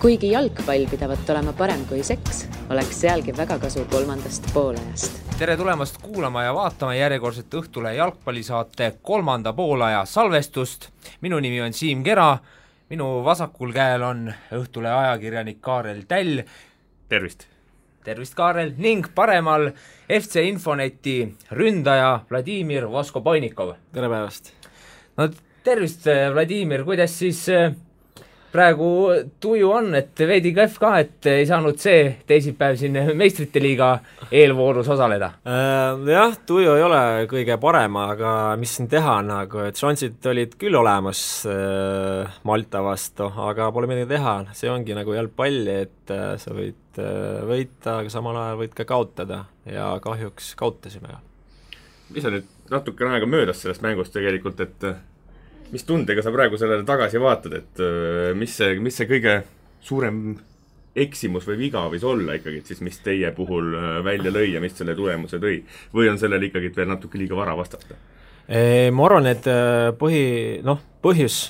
Kuigi jalgpall pidavat olema parem kui seks, oleks sealgi väga kasu kolmandast poolajast. Tere tulemast kuulama ja vaatama järjekordset Õhtule jalgpallisaate 3. poolaja salvestust. Minu nimi on Siim Kera, minu vasakul käel on Õhtule ajakirjanik Kaarel Täll. Tervist! Tervist, Kaarel! Ning paremal FC Infoneti ründaja Vladimir Voskobojnikov. Tere päevast! No tervist, Vladimir! Kuidas siis praegu tuju on, et veidi kehv ka, et ei saanud see teisipäev siin meistrite liiga eelvoorus osaleda? Jah, tuju ei ole kõige parem, aga mis siin teha, et šansid olid küll olemas Malta vastu, aga pole midagi teha. See ongi nagu jalgpalli, et sa võid võita, aga samal ajal võid ka kaotada ja kahjuks kaotasime. Mis on nüüd natukene aega möödas sellest mängust tegelikult, et mis tundega sa praegu sellele tagasi vaatad, et mis see kõige suurem eksimus või viga võis olla ikkagi, et siis mis teie puhul välja lõi ja mis selle tulemuse tõi? Või on sellele ikkagi veel natuke liiga vara vastata? Ma arvan, et põhjus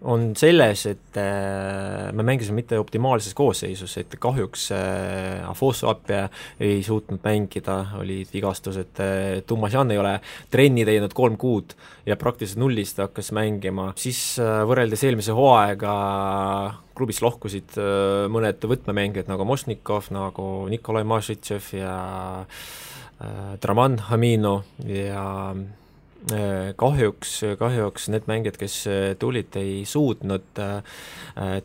on selles, et me mängisime mitte optimaalses koosseisus, et kahjuks Afoso-Appia ei suutnud mängida, olid vigastused, Tumasjan ei ole trenni teinud 3 kuud ja praktiliselt nullist hakkas mängima. Siis võrreldes eelmise hooaega klubis lohkusid mõned võtmemängijad nagu Mosnikov, nagu Nikolai Mašitšev ja Draman Hamino ja kahjuks need mängijad, kes tulid, ei suutnud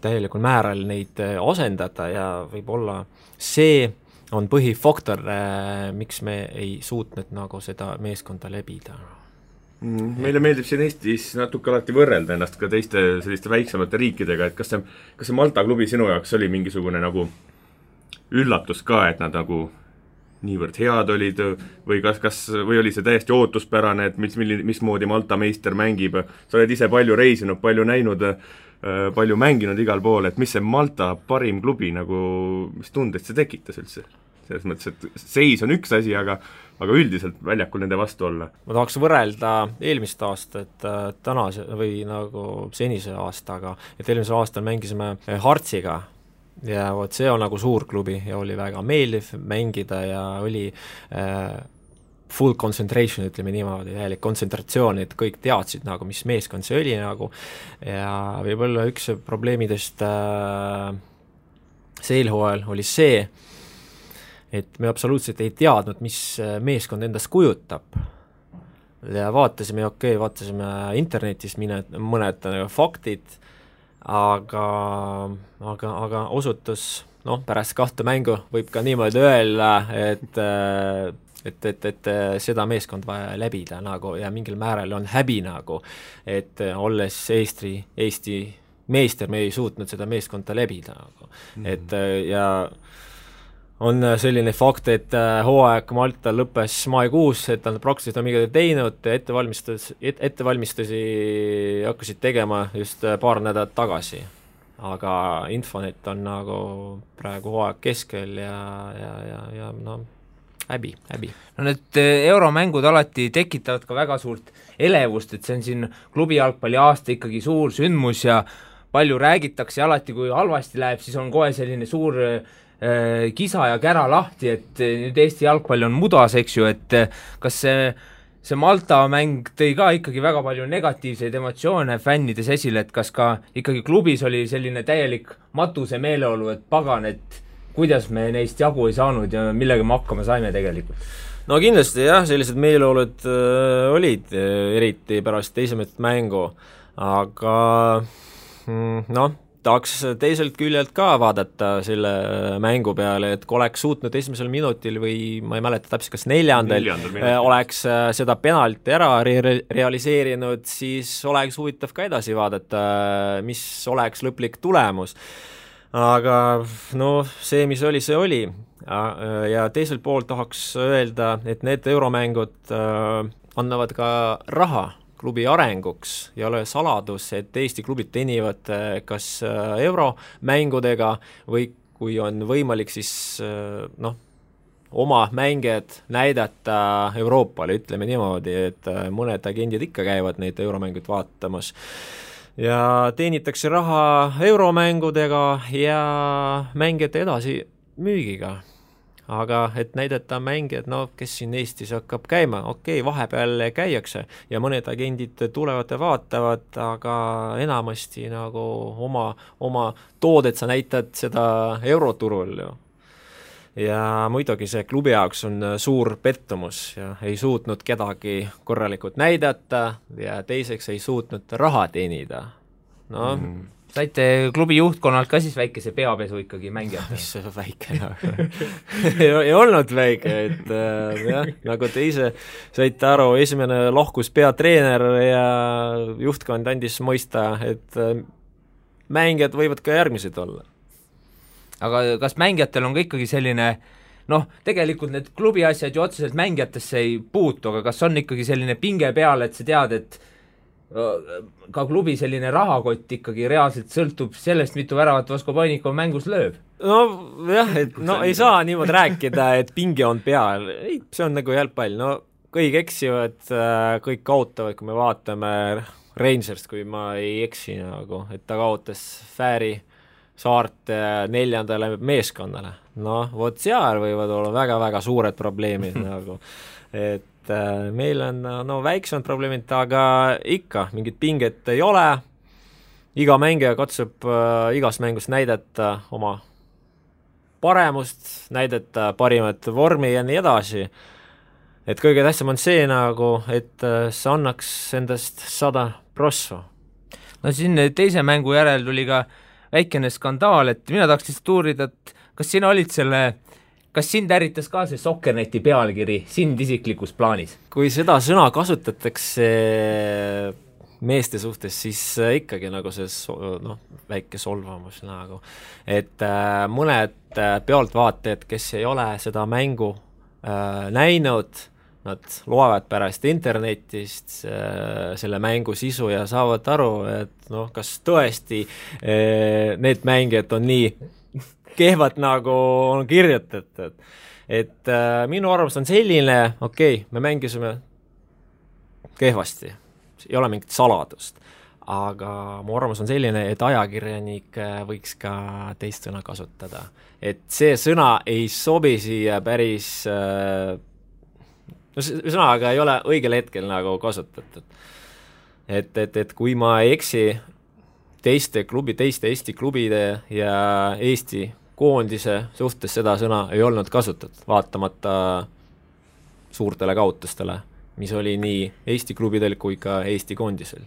täielikul määral neid asendada ja võib-olla see on põhifaktor, miks me ei suutnud nagu seda meeskonda lebida. Meile meeldib siin Eestis natuke alati võrrelda ennast ka teiste selliste väiksemate riikidega, et kas see Malta klubi sinu jaoks oli mingisugune nagu üllatus ka, et nad nagu niivõrd head olid või või oli see täiesti ootuspärane, et mismoodi Malta meister mängib? Sa oled ise palju reisinud, palju näinud, palju mänginud igal pool, et mis see Malta parim klubi nagu, mis tundeid see tekitas üldse? Selles mõttes, et seis on üks asi, aga üldiselt väljakul nende vastu olla. Ma tahaks võrrelda eelmist aastat tänase või nagu senise aastaga, et eelmisel aastal mängisime Hartsiga ja see on nagu suur klubi ja oli väga meeldiv mängida ja oli full concentration, ütleme niimoodi, täielik kontsentratsioon, et kõik teadsid nagu, mis meeskond see oli nagu ja võib-olla üks probleemidest seelhooajal oli see, et me absoluutselt ei teadnud, mis meeskond endast kujutab ja vaatasime internetis mõned faktid, aga osutus, pärast 2 mängu võib ka niimoodi öelda, et seda meeskond vaja läbida nagu, ja mingil määral on häbi nagu, et olles Eesti meister, me ei suutnud seda meeskonda läbida nagu. Et ja on selline fakt, et hooaeg Malta lõppes maikuus, et nad praktiliselt on midagi teinud, ettevalmistusi hakkasid tegema just paar nädalat tagasi. Aga Infonet on nagu praegu hooaeg keskel ja häbi. No need euromängud alati tekitavad ka väga suurt elevust, et see on siin klubi jalgpalli aasta ikkagi suur sündmus ja palju räägitakse ja alati, kui halvasti läheb, siis on kohe selline suur kisa ja kära lahti, et nüüd Eesti jalgpall on mudas, eks ju, et kas see Malta mäng tõi ka ikkagi väga palju negatiivseid emotsioone fännides esile, et kas ka ikkagi klubis oli selline täielik matuse meeleolu, et pagan, et kuidas me neist jagu ei saanud ja millega me hakkama saime tegelikult? No kindlasti jah, sellised meeleolud olid, eriti pärast teisemat mängu, aga tahaks teiselt küljelt ka vaadata selle mängu peale, et kui oleks suutnud esimesel minutil või ma ei mäleta täpselt, kas 4. oleks seda penalti ära realiseerinud, siis oleks huvitav ka edasi vaadata, mis oleks lõplik tulemus. Aga see, mis oli, see oli. Ja teiselt poolt tahaks öelda, et need euromängud annavad ka raha klubi arenguks ja ole saladus, et Eesti klubid teenivad kas euromängudega või kui on võimalik, siis oma mängijad näidata Euroopale, ütleme niimoodi, et mõned agendid ikka käivad neid euromängud vaatamas. ja teenitakse raha euromängudega ja mängijate edasi müügiga. Aga et näidata mängijad, no kes siin Eestis hakkab käima, okei, vahepeal käiakse ja mõned agendid tulevad ja vaatavad, aga enamasti nagu oma toodet sa näitad seda euroturul ju. Ja muidugi see klubi jaoks on suur pettumus ja ei suutnud kedagi korralikult näidata ja teiseks ei suutnud raha teenida. No saite klubi juhtkonnalt ka siis väikese peapesu ikkagi mängijate? Mis see väike ei olnud väike, et jah, nagu te ise saite aru, esimene lahkus peatreener ja juhtkond andis mõista, et mängijad võivad ka järgmised olla. Aga kas mängijatel on ka ikkagi selline, tegelikult need klubi asjad ju otseselt mängijatesse ei puutu, aga kas on ikkagi selline pinge peal, et sa tead, et ka klubi selline rahakott ikkagi reaalselt sõltub sellest, mitu väravat Vasko Panikov mängus lööb? No jah, et ei saa niimoodi rääkida, et pinge on peal. Ei, see on nagu jalgpall. No kõik eksivad, kõik kaotavad, kui me vaatame Rangerst, kui ma ei eksi nagu, et ta kaotas Fääri Saarte 4. meeskonnale. No, vot seal võivad olla väga-väga suured probleemid nagu, et meil on väiksemad probleemid, aga ikka mingit pinget ei ole. Iga mängija katsub igas mängus näidata oma paremust, näidata parimat vormi ja nii edasi. Et kõige tähtsam on see nagu, et see annaks endast 100%. No siin teise mängu järel tuli ka väikene skandaal, et mina tahaks lihtsalt uurida, et kas sind ärritas ka see Sokkerneti pealkiri sind isiklikus plaanis? Kui seda sõna kasutatakse meeste suhtes, siis ikkagi nagu see väike solvamus nagu. Et mõned pealtvaatajad, kes ei ole seda mängu näinud, nad loevad pärast internetist selle mängu sisu ja saavad aru, et kas tõesti need mängijad on nii kehvad nagu on kirjutatud. Et minu arvamus on selline, me mängisime kehvasti, ei ole mingit saladust, aga mu arvamus on selline, et ajakirjanik võiks ka teist sõna kasutada. Et see sõna ei sobi siia päris, sõnaga ei ole õigel hetkel nagu kasutatud. Et kui ma ei eksi, teiste Eesti klubide ja Eesti koondise suhtes seda sõna ei olnud kasutatud, vaatamata suurtele kaotustele, mis oli nii Eesti klubidel kui ka Eesti koondisel.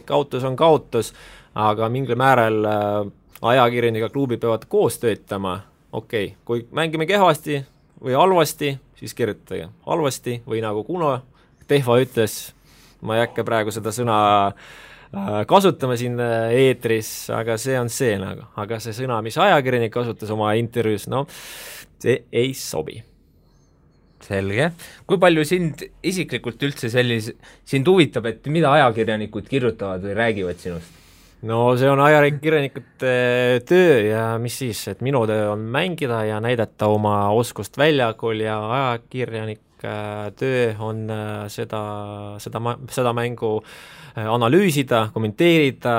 Kaotus on kaotus, aga mingil määral ajakirjaniga klubi peavad koos töötama. Kui mängime kehvasti või halvasti, siis kirjutage halvasti või nagu Kuno Tehva ütles, ma ei hakka praegu seda sõna kasutama siin eetris, aga see on see nagu. Aga see sõna, mis ajakirjanik kasutas oma intervjuus, see ei sobi. Selge. Kui palju sind isiklikult üldse sind huvitab, et mida ajakirjanikud kirjutavad või räägivad sinust? No see on ajakirjanikute töö ja mis siis, et minu töö on mängida ja näidata oma oskust väljakul ja ajakirjanik töö on seda mängu analüüsida, kommenteerida,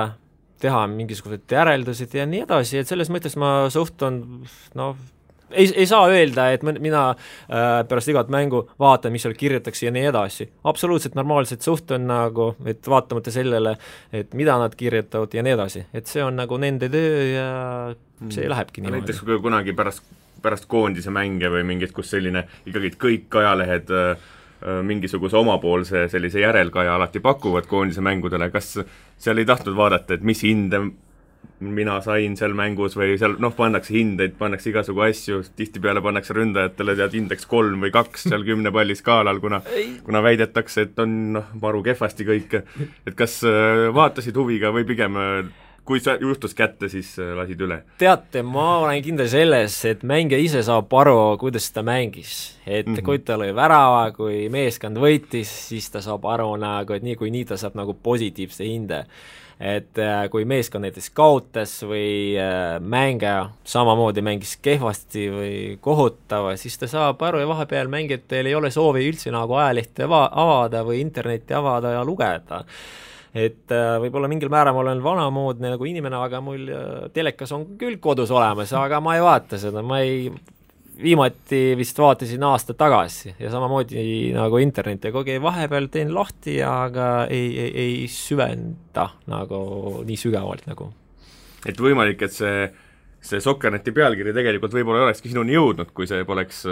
teha mingisugused järeldused ja nii edasi, et selles mõttes ma suhtun, ei saa öelda, et mina pärast igat mängu vaatan, mis seal kirjutatakse ja nii edasi. Absoluutselt normaalselt suhtun nagu, et vaatamata sellele, et mida nad kirjutavad ja nii edasi. Et see on nagu nende töö ja see lähebki niimoodi. Näiteks kui kunagi pärast koondise mänge või mingit, kus selline ikkagi kõik ajalehed mingisuguse omapoolse sellise järelkaja alati pakuvad koondise mängudele, kas seal ei tahtnud vaadata, et mis hinde mina sain seal mängus või seal, pannakse hindeid, pannakse igasugu asju, tihtipeale pannakse ründajatele indeks 3 või 2 seal 10 palli skaalal, kuna väidetakse, et on maru kehvasti kõik. Et kas vaatasid huviga või pigem kui sa juhtus kätte, siis lasid üle? Teate, ma olen kindel selles, et mängija ise saab aru, kuidas ta mängis. Et kui ta lõi värava, kui meeskond võitis, siis ta saab aru nagu, et nii ta saab nagu positiivse hinde. Et kui meeskond näiteks kaotas või mängija samamoodi mängis kehvasti või kohutava, siis ta saab aru ja vahepeal mängijatel ei ole soovi üldse nagu ajalehti avada või internetti avada ja lugeda. et võib-olla mingil määral ma olen vanamoodne nagu inimene, aga mul telekas on küll kodus olemas, aga ma ei vaata seda, viimati vist vaatasin aasta tagasi ja samamoodi nagu internet ja kogu vahepeal teen lahti, aga ei süvenda nagu nii sügavalt nagu. Et võimalik, et see Sokkerneti pealkiri tegelikult võib-olla olekski sinuni jõudnud, kui see poleks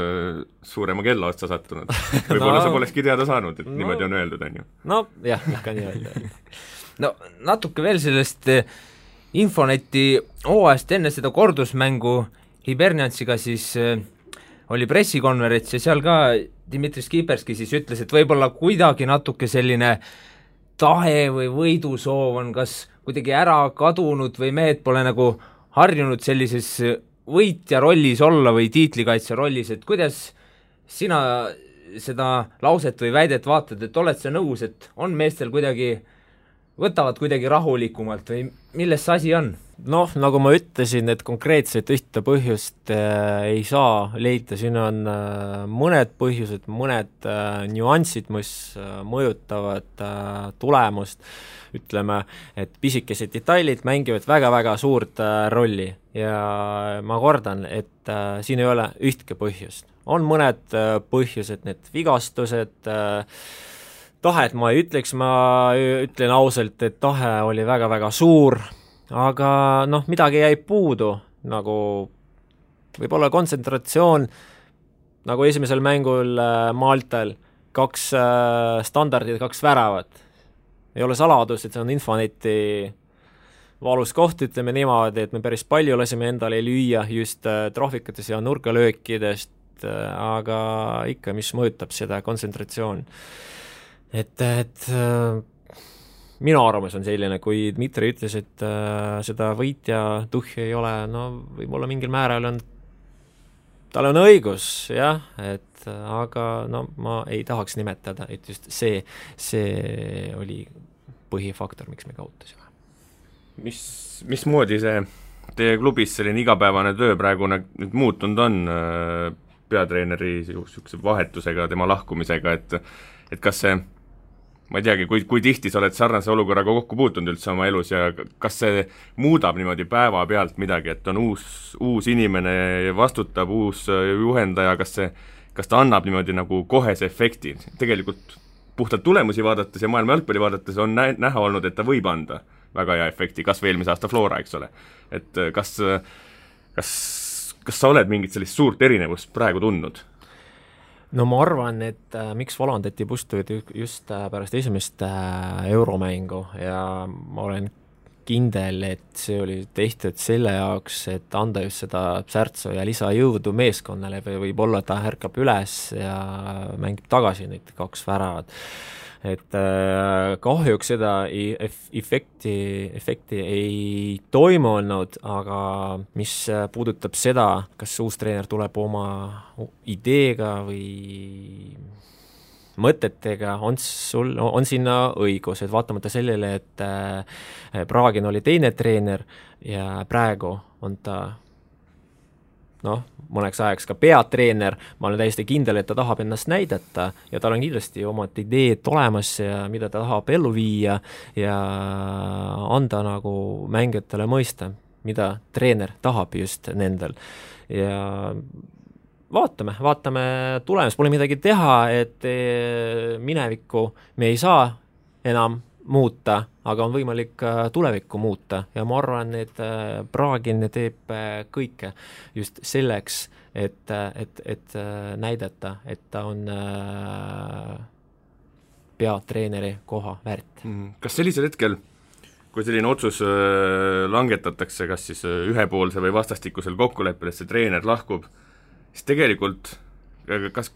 suurema kella otsa sattunud. Võib-olla sa polekski teada saanud, et niimoodi on öeldud, on ju. No jah, ikka nii öelda. No natuke veel sellest Infoneti hooajast enne seda kordusmängu Hiberniansiga siis oli pressikonverents ja seal ka Dmitri Skiberski siis ütles, et võib-olla kuidagi natuke selline tahe või võidusoov on kas kuidagi ära kadunud või mehed pole nagu harjunud sellises võitja rollis olla või tiitlikaitse rollis, et kuidas sina seda lauset või väidet vaatad, et oled sa nõus, et on meestel kuidagi, võtavad kuidagi rahulikumalt või milles see asi on? Noh, nagu ma ütlesin, et konkreetselt ühte põhjust ei saa leida, siin on mõned põhjused, mõned nüansid, mis mõjutavad tulemust, ütleme, et pisikesed detailid mängivad väga-väga suurt rolli ja ma kordan, et siin ei ole ühtki põhjust. On mõned põhjused, need vigastused, tahet ma ei ütleks, ma ütlen ausalt, et tahe oli väga-väga suur, aga noh, midagi jäi puudu, nagu võib-olla kontsentratsioon, nagu esimesel mängul Maltal, 2 standardid, 2 väravat. Ei ole saladus, et see on Infoneti valus koht, ütleme niimoodi, et me päris palju lasime endale lüüa just trahvikutes ja nurgalöökidest, aga ikka, mis mõjutab seda kontsentratsioon. Et minu arvamus on selline, kui Dmitri ütles, et seda võitja tuhhi ei ole, no võib-olla mingil määral tal on õigus, jah, aga no ma ei tahaks nimetada, et just see oli põhifaktor, miks me kaotasime. Mismoodi see teie klubis selline igapäevane töö praegu nüüd muutunud on peatreeneri sihukese vahetusega, tema lahkumisega, et kas see, ma ei teagi, kui tihti sa oled sarnase olukorraga kokku puutunud üldse oma elus ja kas see muudab niimoodi päeva pealt midagi, et on uus inimene vastutab, uus juhendaja, kas ta annab niimoodi nagu kohese efekti? Tegelikult puhtalt tulemusi vaadates ja maailma jalgpalli vaadates on näha olnud, et ta võib anda väga hea efekti, kas või eelmise aasta Flora, eks ole. Et kas sa oled mingit sellist suurt erinevust praegu tundnud? No ma arvan, et miks valandati Pustuid just pärast esimest euromängu ja ma olen kindel, et see oli tehtud selle jaoks, et anda just seda särtsu ja lisajõudu meeskonnale või võib-olla ta ärkab üles ja mängib tagasi neid 2 väravat. Et kahjuks seda efekti ei toimunud, aga mis puudutab seda, kas uus treener tuleb oma ideega või mõtetega, on sinna õigus, et vaatamata sellele, et Praagin oli teine treener ja praegu on ta mõneks ajaks ka peatreener, ma olen täiesti kindel, et ta tahab ennast näidata ja tal on kindlasti omad ideed olemas ja mida ta tahab ellu viia ja anda nagu mängijatele mõista, mida treener tahab just nendel. Ja vaatame tulemus, pole midagi teha, et minevikku me ei saa enam muuta, aga on võimalik tulevikku muuta ja ma arvan, et Praagin teeb kõike just selleks, et näidata, et ta on peatreeneri koha väärt. Kas sellisel hetkel, kui selline otsus langetatakse, kas siis ühepoolse või vastastikusel kokkuleppel, et see treener lahkub, siis tegelikult,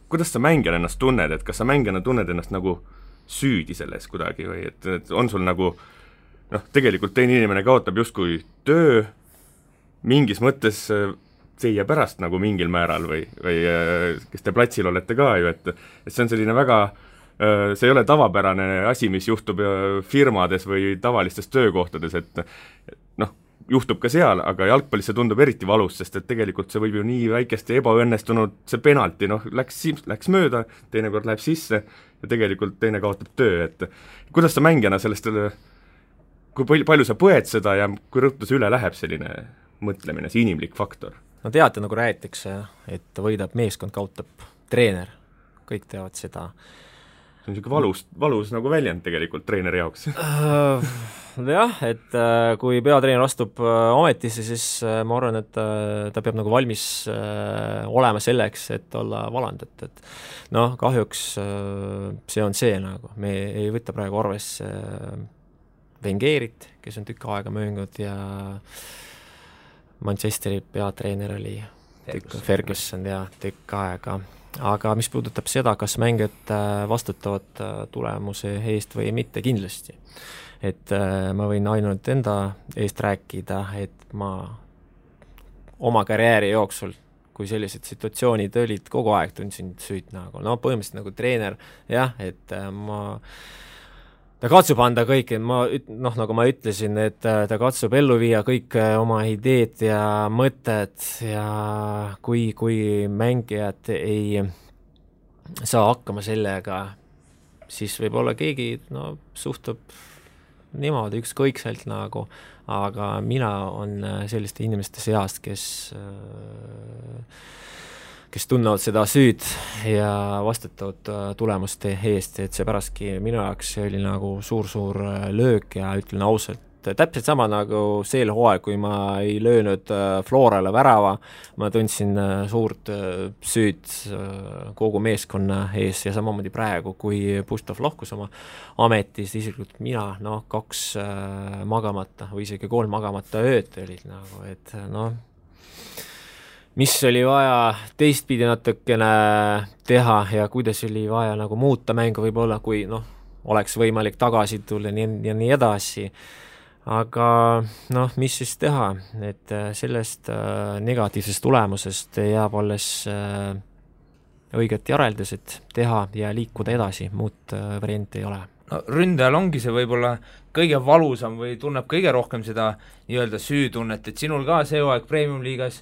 kuidas sa mängijana ennast tunned, et kas sa mängijana tunned ennast nagu süüdi selles kuidagi või et on sul nagu tegelikult teine inimene kaotab justkui töö mingis mõttes teie pärast nagu mingil määral või kes te platsil olete ka ju, et see on selline väga, see ei ole tavapärane asi, mis juhtub firmades või tavalistes töökohtades, et juhtub ka seal, aga jalgpallis see tundub eriti valus, sest et tegelikult see võib ju nii väikesti ebaõnnestunud, see penalti, läks mööda, teinekord läheb sisse ja tegelikult teine kaotab töö, et kuidas sa mängijana sellest kui palju sa põed seda ja kui rõhtu see üle läheb selline mõtlemine, see inimlik faktor? No teate, nagu räägitakse, et võidab meeskond, kaotab treener, kõik teavad seda. See on niisugune valus nagu väljend tegelikult treeneri jaoks. Jah, et kui peatreener astub ametisse, siis ma arvan, et ta peab nagu valmis olema selleks, et olla valand, et noh, kahjuks see on see nagu, me ei võta praegu arvesse Wengerit, kes on tükk aega möönud ja Manchesteri peatreener oli Ferguson ja tükk aega. Aga mis puudutab seda, kas mängijad vastutavad tulemuse eest või mitte, kindlasti. Et ma võin ainult enda eest rääkida, et ma oma karjääri jooksul, kui sellised situatsioonid olid, kogu aeg tundsin süüd nagu, no põhimõtteliselt nagu treener, jah, et ta katsub anda kõik, noh, nagu ma ütlesin, et ta katsub ellu viia kõik oma ideed ja mõtted ja kui mängijad ei saa hakkama sellega, siis võib-olla keegi suhtub niimoodi ükskõikselt nagu, aga mina on selliste inimeste seast, kes tunnevad seda süüd ja vastutavad tulemuste eest, et see pärastki minu jaoks oli nagu suur löök ja ütlen ausalt, täpselt sama nagu sel hooaeg, kui ma ei löönud Florale värava, ma tundsin suurt süüd kogu meeskonna ees ja samamoodi praegu, kui Puštov lahkus oma ametis, isiklikult mina, 2 magamata või isegi 3 magamata ööd olid nagu, et mis oli vaja teistpidi natukene teha ja kuidas oli vaja nagu muuta mängu võib-olla, kui oleks võimalik tagasi tulla ja nii edasi. Aga mis siis teha, et sellest negatiivsest tulemusest jääb alles õiget järeldused teha ja liikuda edasi, muud varianti ei ole. No, ründajal ongi see võib-olla kõige valusam või tunneb kõige rohkem seda nii-öelda süütunnet, et sinul ka see hooaeg Premium-liigas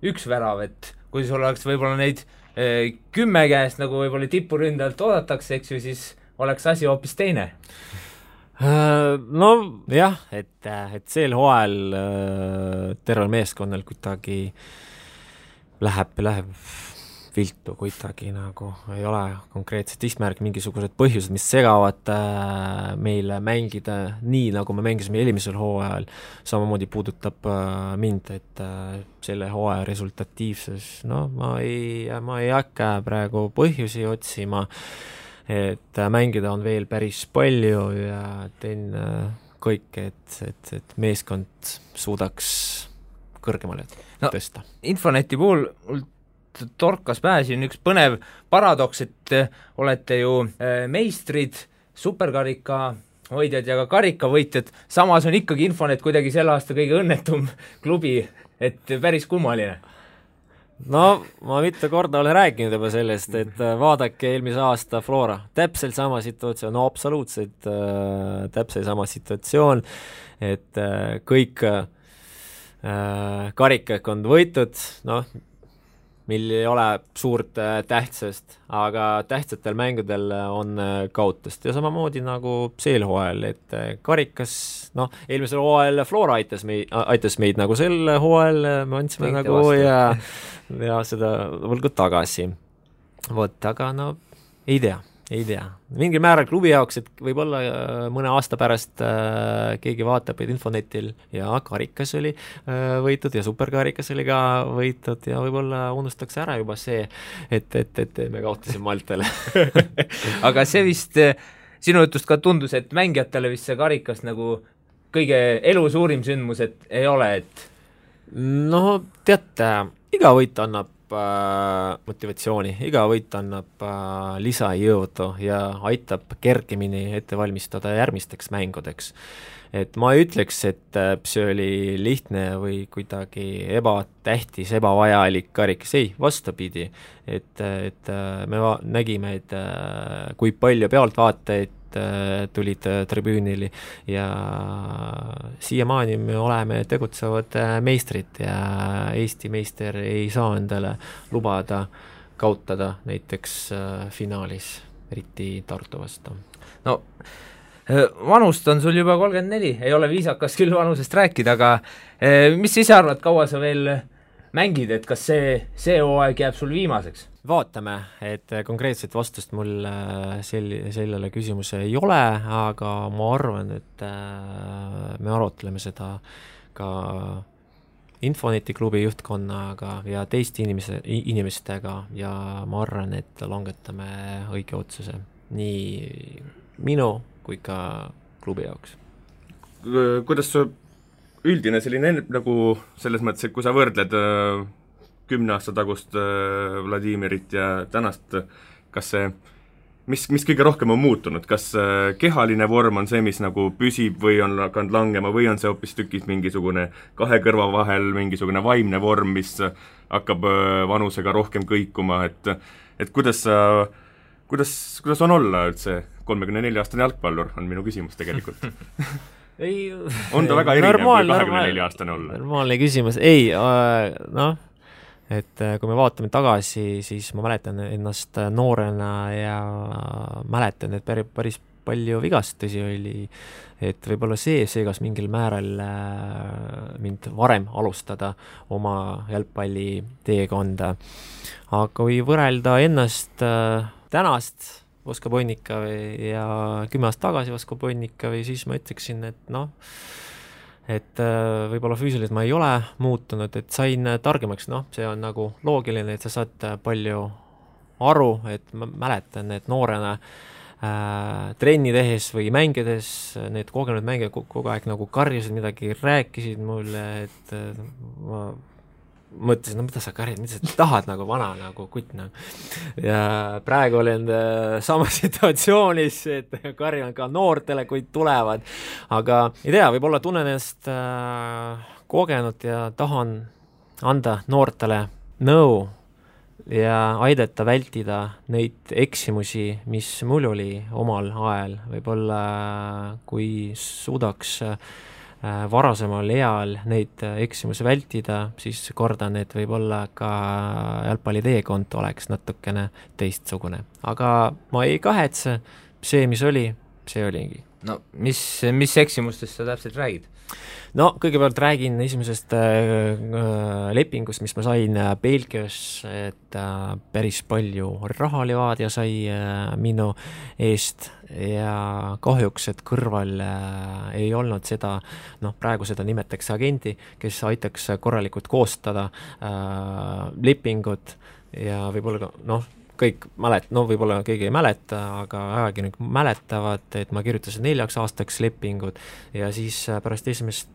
1 värav, et kui sul oleks võib-olla neid 10 käest, nagu võib-olla tipuründajalt oodatakse, eks ju, siis oleks asi hoopis teine. No jah, et sel hooajal tervel meeskonnal kuidagi läheb viltu kuidagi nagu, ei ole konkreetset eesmärki, mingisugused põhjused, mis segavad meile mängida nii, nagu me mängisime eelmisel hooajal, samamoodi puudutab mind, et selle hooaja resultatiivsus, ma ei hakka praegu põhjusi otsima, et mängida on veel päris palju ja teen kõik, et meeskond suudaks kõrgemale tõsta. Infoneti puhul torkas pähe siin üks põnev paradoks, et olete ju meistrid, superkarika hoidjad ja ka karikavõitjad, samas on ikkagi Infonet kuidagi selle aasta kõige õnnetum klubi, et päris kummaline. No, ma mitu korda olen rääkinud juba sellest, et vaadake eelmise aasta Flora, täpselt sama situatsioon, absoluutselt täpselt sama situatsioon, et kõik karikad on võitud, meil ei ole suurt tähtsust, aga tähtsatel mängudel on kaotust ja samamoodi nagu sel hooajal, et karikas, eelmisel hooajal Flora aitas meid nagu sel hooajal, me andsime nagu ja seda võlgu tagasi. Aga ei tea. Mingil määral klubi jaoks, et võib-olla mõne aasta pärast keegi vaatab, et Infonetil ja karikas oli võitud ja superkarikas oli ka võitud ja võib-olla unustaks ära juba see, et me kaotasime Maltale. Aga see vist sinu jutust ka tundus, et mängijatele vist see karikas nagu kõige elu suurim sündmus, et ei ole, et teate, iga võit annab motivatsiooni, iga võit annab lisajõudu ja aitab kergemini ette valmistada järgmisteks mängudeks. Et ma ei ütleks, et see oli lihtne või kuidagi ebatähtis, ebavajalik karikas, ei, vastupidi. Et me nägime, et kui palju pealtvaatajaid tulid tribüünili ja siiamaani me oleme tegutsevad meistrid ja Eesti meister ei saa endale lubada kaotada näiteks finaalis, eriti Tartu vastu. No Vanust on sul juba 34, ei ole viisakas küll vanusest rääkida, aga mis sa ise arvad, kaua sa veel mängid, et kas see hooaeg jääb sul viimaseks? Vaatame, et konkreetset vastust mul sellele küsimuse ei ole, aga ma arvan, et me arutleme seda ka Infoneti klubi juhtkonnaga ja teiste inimestega ja ma arvan, et langetame õige otsuse nii minu kui ka klubi jaoks. Kuidas su üldine selline nagu selles mõttes, et kui sa võrdled 10 aasta tagust Vladimirit ja tänast, kas see, mis kõige rohkem on muutunud, kas kehaline vorm on see, mis nagu püsib või on hakanud langema või on see hoopis tükis mingisugune kahe kõrva vahel mingisugune vaimne vorm, mis hakkab vanusega rohkem kõikuma, et kuidas on olla üldse 34-aastane jalgpallur, on minu küsimus tegelikult. On ta väga erinev kui 24-aastane olla? Normaalne küsimus, ei, et kui me vaatame tagasi, siis ma mäletan ennast noorena ja mäletan, et päris palju vigastusi oli, et võib-olla see seegas mingil määral mind varem alustada oma jalgpalli teekonda. Aga kui võrrelda ennast tänast Vosko Bonnikavi ja 10 aastat tagasi Vosko Bonnikavi, siis ma ütleksin, et võib-olla füüsiliselt ma ei ole muutunud, et sain targemaks, see on nagu loogiline, et sa saad palju aru, et ma mäletan, et noorena trenni tehes või mängides need kogenud mängijad kogu aeg nagu karjusid midagi, rääkisid mulle, et ma mõtlesin, mida sa karjad, mida sa tahad nagu vana nagu kutt nagu. Ja praegu olen sama situatsioonis, et karjan ka noortele, kui tulevad, aga ei tea, võib-olla tunnen ennast kogenud ja tahan anda noortele nõu ja aidata vältida neid eksimusi, mis mul oli omal ajal, võib-olla kui suudaks varasemal eal neid eksimusi vältida, siis kordan, et võib-olla ka jalgpalli teekond oleks natukene teistsugune. Aga ma ei kahetse, see, mis oli, see oligi. No mis eksimustest sa täpselt räägid? No kõigepealt räägin esimesest lepingust, mis ma sain Belgias, et päris palju rahalivaad ja sai minu eest ja kahjuks, et kõrval ei olnud seda, praegu seda nimetakse agenti, kes aitaks korralikult koostada lepingut ja võib-olla kõik võib-olla keegi ei mäleta, aga ajakirjanik mäletavad, et ma kirjutasin 4 aastaks lepingut ja siis pärast esimest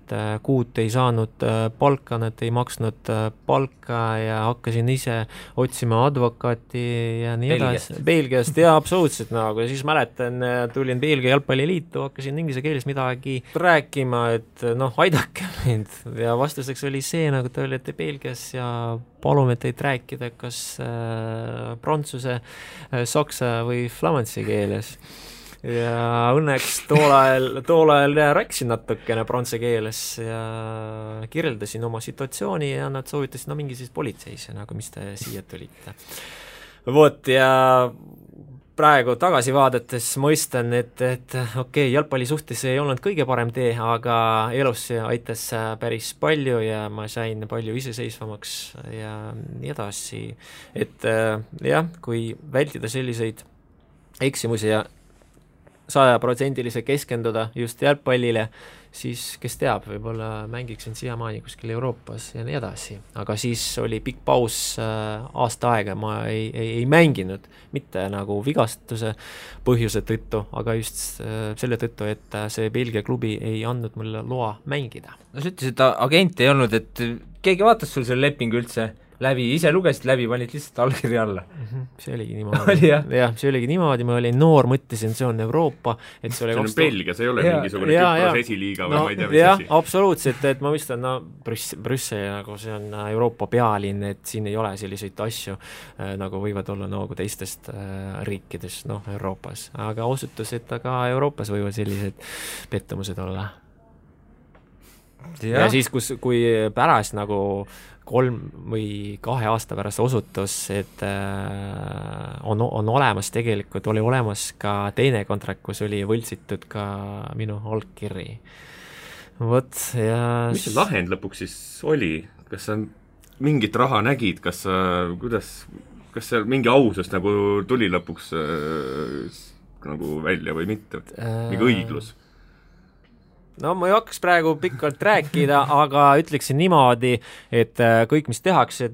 kuud ei saanud palka, nad ei maksnud palka ja hakkasin ise otsima advokaati ja nii edasi. Belgiast, ja absoluutselt ja siis mäletan, tulin Belgia jalgpalliliitu, hakkasin inglise keeles midagi rääkima, et aidake mind ja vastuseks oli see, nagu te olete Belgias ja palume teid rääkida kas prantsuse, saksa või flamansi keeles. Ja õnneks tool ajal rääkisin natukene prantse keeles ja kirjeldasin oma situatsiooni ja nad soovitasid mingi siis politseisse, nagu mis te siia tulite. Vot ja praegu tagasi vaadates mõistan, et okei, jalgpalli suhtes ei olnud kõige parem tee, aga elus aitas päris palju ja ma sain palju iseseisvamaks ja nii edasi. Et jah, kui vältida selliseid eksimusi ja 100% keskenduda just jalgpallile, siis kes teab, võib-olla mängiksin siiamaani kuskil Euroopas ja nii edasi. Aga siis oli pikk paus aasta aega, ma ei mänginud, mitte nagu vigastuse põhjuse tõttu, aga just selle tõttu, et see Belgia klubi ei andnud mulle loa mängida. No sa ütlesid, et agent ei olnud, et keegi vaatas sul selle lepingu üldse läbi, ise lugesid läbi, panid lihtsalt allkirja alla. See oligi niimoodi. Jah, see oligi niimoodi, ma olin noor, mõtlesin, see on Euroopa, et see oli see on Belgia, see ei ole mingisugune Küpros esiliiga või ma ei tea, mis asi. Absoluutselt, et ma mõistan, Brüssel, nagu see on Euroopa pealinn, et siin ei ole selliseid asju, nagu võivad olla nagu teistest riikides, Euroopas. Aga osutus, et ka Euroopas võivad sellised pettumused olla. ja siis, kui pärast nagu 3 või 2 aasta pärast osutus, et on olemas tegelikult, oli olemas ka teine kontrakt, kus oli võltsitud ka minu allkirri. Vot, ja mis see lahend lõpuks siis oli? Kas sa mingit raha nägid, kas seal mingi ausus nagu tuli lõpuks nagu välja või mitte? Mingi õiglus? No ma ei hakkaks praegu pikalt rääkida, aga ütleksin niimoodi, et kõik, mis tehakse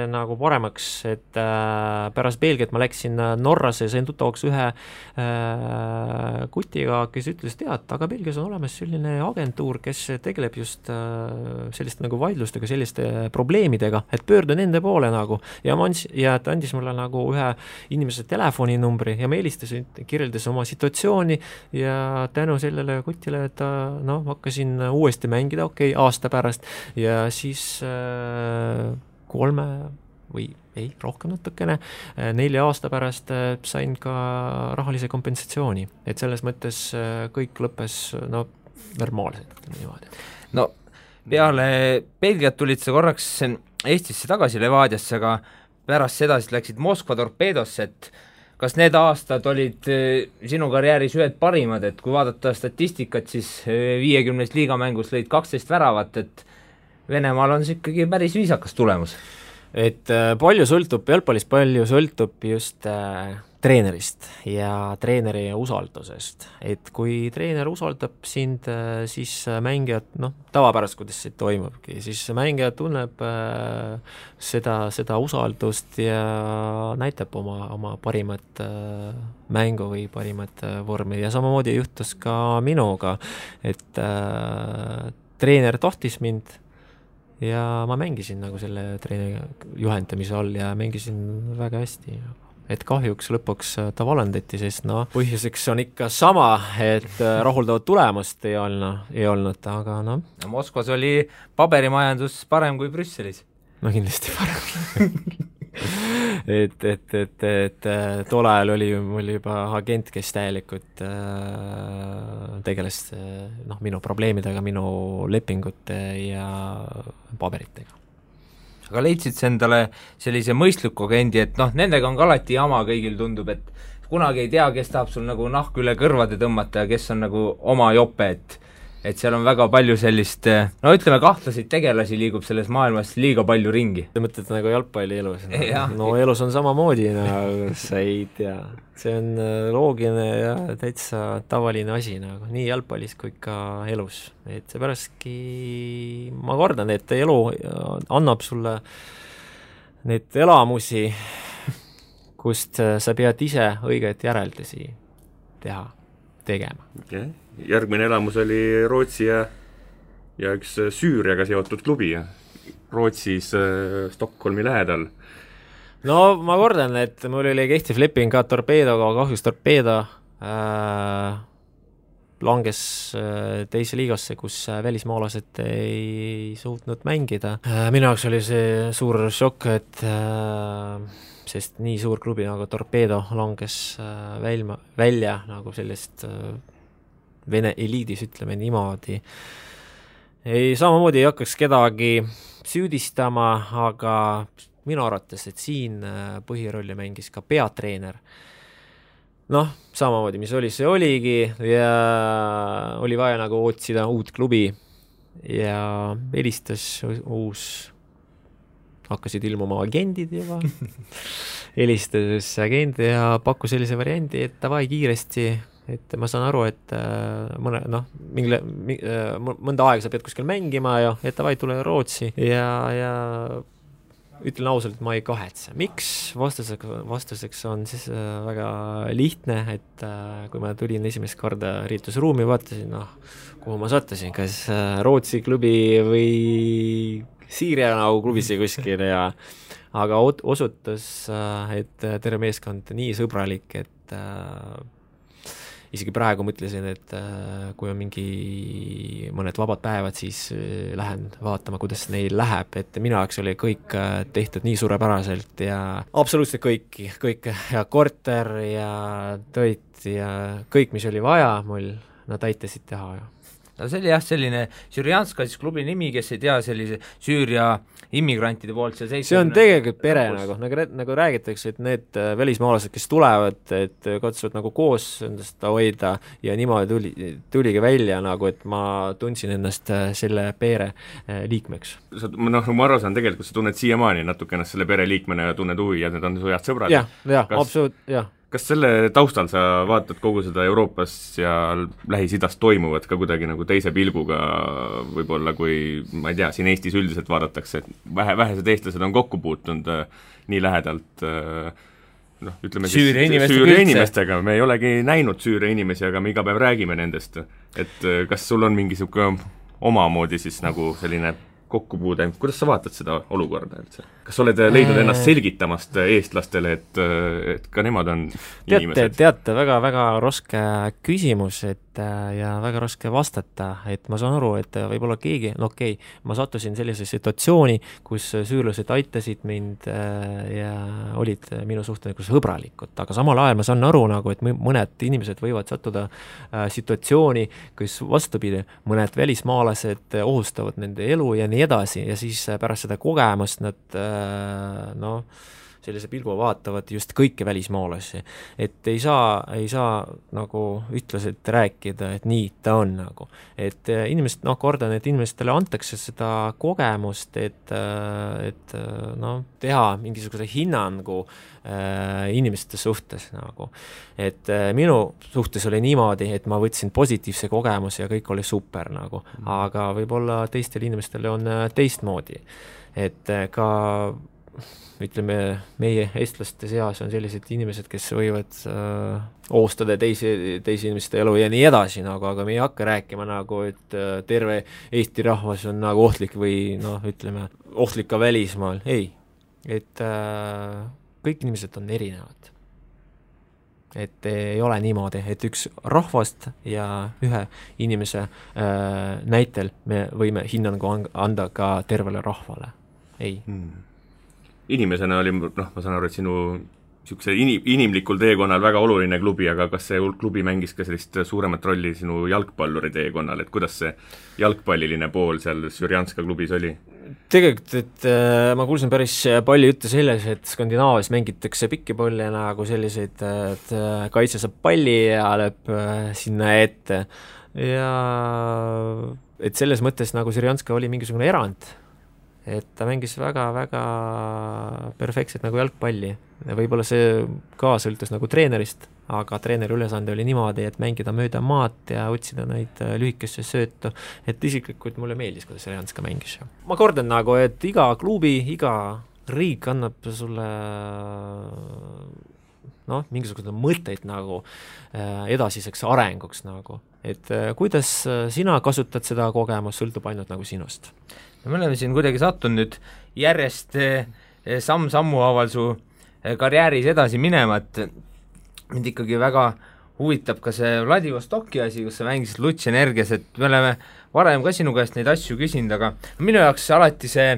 nagu paremaks, et pärast Belgiat ma läksin Norrasse ja sain tuttavaks ühe kutiga, kes ütles, aga Belgias on olemas selline agentuur, kes tegeleb just selliste nagu vaidlustega, selliste probleemidega, et pöördu nende poole nagu. Ja ta andis mulle nagu ühe inimese telefoninumbri ja ma helistasin, kirjeldas oma situatsiooni ja tänu sellele kutile, et hakkasin uuesti mängida, aasta pärast ja siis 3 või rohkem natukene, 4 aasta pärast sain ka rahalise kompensatsiooni, et selles mõttes kõik lõppes normaalselt niimoodi. No peale Belgiat tulid sa korraks Eestisse tagasi Levadiasse, aga pärast seda siis läksid Moskva Torpeedosse, et kas need aastad olid sinu karjääris ühed parimad, et kui vaadata statistikat, siis 50 liigamängus lõid 12 väravat, et Venemaal on see ikkagi päris viisakas tulemus. Et palju sõltub, jalgpallis palju sõltub just treenerist ja treeneri usaldusest. Et kui treener usaldab sind, siis mängijad, tavapärast, kuidas see toimubki, siis mängija tunneb seda usaldust ja näitab oma parimat mängu või parimat vormi ja samamoodi juhtus ka minuga, et treener tahtis mind ja ma mängisin nagu selle treeneri juhendamise all ja mängisin väga hästi. Et kahjuks lõpuks ta valendati, sest põhjuseks on ikka sama, et rahuldavat tulemust ei olnud, aga Moskvas oli paberimajandus parem kui Brüsselis. Kindlasti parem. et tol ajal oli mul juba agent, kes täielikult tegeles minu probleemidega, minu lepingute ja paberitega. Aga leidsid sa endale sellise mõistliku agendi, et nendega on ka alati jama, kõigil tundub, et kunagi ei tea, kes tahab sul nagu nahku üle kõrvade tõmmata ja kes on nagu oma jope, et seal on väga palju sellist, ütleme, kahtlaseid tegelasi liigub selles maailmas liiga palju ringi. Sa mõtled nagu jalgpalli elus? Elus on samamoodi, sa ei tea. See on loogiline ja täitsa tavaline asi, nii jalgpallis kui ka elus. Et seepäraski ma kordan, et elu annab sulle need elamusi, kust sa pead ise õiget järeldusi tegema. Okay. Järgmine elamus oli Rootsi ja üks Süüriaga seotud klubi Rootsis Stockholmi lähedal. Ma kordan, et mul oli kehtiv leping ka Torpeedoga, kahjuks Torpeedo langes teise liigasse, kus välismaalased ei suutnud mängida. Minu jaoks oli see suur šokk, et sest nii suur klubi nagu Torpeedo langes välja nagu sellest Vene eliidis, ütleme niimoodi. Samamoodi ei hakkaks kedagi süüdistama, aga minu arvates, et siin põhirolli mängis ka peatreener. Samamoodi, mis oli, see oligi ja oli vaja nagu otsida uut klubi ja helistas hakkasid ilmuma agendid juba, helistas agent ja pakkus sellise variandi, et davai kiiresti, et ma saan aru, et mõnda aega sa pead kuskil mängima ja et davai tule Rootsi ja ütlen ausalt, et ma ei kahetse. Miks? Vastuseks on siis väga lihtne, et kui ma tulin esimest korda riitusruumi, vaatasin, kuhu ma sattusin, kas Rootsi klubi või Siiria nagu klubisse kuskil aga osutus, et terve meeskond nii sõbralik, et isegi praegu mõtlesin, et kui on mõned vabad päevad, siis lähen vaatama, kuidas neil läheb, et minu jaoks oli kõik tehtud nii suurepäraselt ja absoluutselt kõik ja korter ja toit ja kõik, mis oli vaja mul, nad aitasid teha. no see oli jah, selline Sürjanska siis klubi nimi, kes ei tea sellise Süüria immigrantide poolt see on tegelikult pere nagu räägitakse, et need välismaalased, kes tulevad, et katsuvad nagu koos endast hoida ja niimoodi tuligi välja nagu, et ma tundsin ennast selle pere liikmeks. Ma aru saan, tegelikult sa tunned siiamaani natuke ennast selle pere liikmena ja tunned huvi ja need on su head sõbrad. Jah, absoluut, jah. Kas selle taustal sa vaatad kogu seda Euroopas ja Lähis-Idas toimuvat ka kuidagi nagu teise pilguga võib-olla, kui ma ei tea, siin Eestis üldiselt vaadatakse, et vähesed eestlased on kokku puutunud nii lähedalt ütleme Süüria inimestega, me ei olegi näinud Süüria inimesi, aga me iga päev räägime nendest, et kas sul on mingi siuke omamoodi siis nagu selline kokkupuude, kuidas sa vaatad seda olukorda üldse? Kas oled leidnud ennast selgitamast eestlastele, et ka nemad on inimesed? Teate, väga raske küsimus, ja väga raske vastata, et ma saan aru, et võib-olla keegi, ma sattusin sellise situatsiooni, kus süürlased aitasid mind ja olid minu suhteliselt sõbralikud, aga samal ajal ma saan aru nagu, et mõned inimesed võivad sattuda situatsiooni, kus vastupidi, mõned välismaalased ohustavad nende elu ja nii edasi ja siis pärast seda kogemust nad sellise pilgu vaatavad just kõiki välismaalasi, et ei saa nagu ütleselt rääkida, et nii ta on nagu, et inimesed, kordan, et inimestele antakse seda kogemust, et teha mingisuguse hinnangu inimeste suhtes nagu, et minu suhtes oli niimoodi, et ma võtsin positiivse kogemuse ja kõik oli super nagu, aga võib-olla teistel inimestel on teistmoodi, et ka ütleme, meie eestlaste seas on sellised inimesed, kes võivad ohustada teisi inimeste elu ja nii edasi, nagu, aga me ei hakka rääkima nagu, et terve Eesti rahvas on nagu ohtlik või ütleme, ohtlik ka välismaal, ei. Et kõik inimesed on erinevad. Et ei ole niimoodi, et üks rahvast ja ühe inimese näitel me võime hinnangu anda ka tervele rahvale. Ei. Inimesena oli, ma saan aru, et sinu inimlikul teekonnal väga oluline klubi, aga kas see klubi mängis ka sellist suuremat rolli sinu jalgpalluri teekonnal, et kuidas see jalgpalliline pool seal Sürjanska klubis oli? Tegelikult, et ma kuulsin päris palju juttu selles, et Skandinaavias mängitakse pikkipalli nagu selliseid, et kaitse saab palli ja lööb sinna ette ja et selles mõttes nagu Sürjanska oli mingisugune erand, et ta mängis väga-väga perfektselt nagu jalgpalli. Võib-olla see ka sõltus nagu treenerist, aga treeneri ülesande oli niimoodi, et mängida mööda maad ja otsida neid lühikesse söötu, et isiklikult mulle meeldis, kuidas Sürjanska mängis. Ma kordan nagu, et iga klubi, iga riik annab sulle mingisugune mõtteid nagu edasiseks arenguks nagu, et kuidas sina kasutad seda kogemust, sõltub ainult nagu sinust. Me oleme siin kuidagi sattunud nüüd järjest samm-sammu haaval su karjääris edasi minema, et mind ikkagi väga huvitab ka see Vladivostoki asi, kus sa mängisid Lutš Energias, et me oleme varem ka sinu käest neid asju küsinud, aga minu jaoks alati see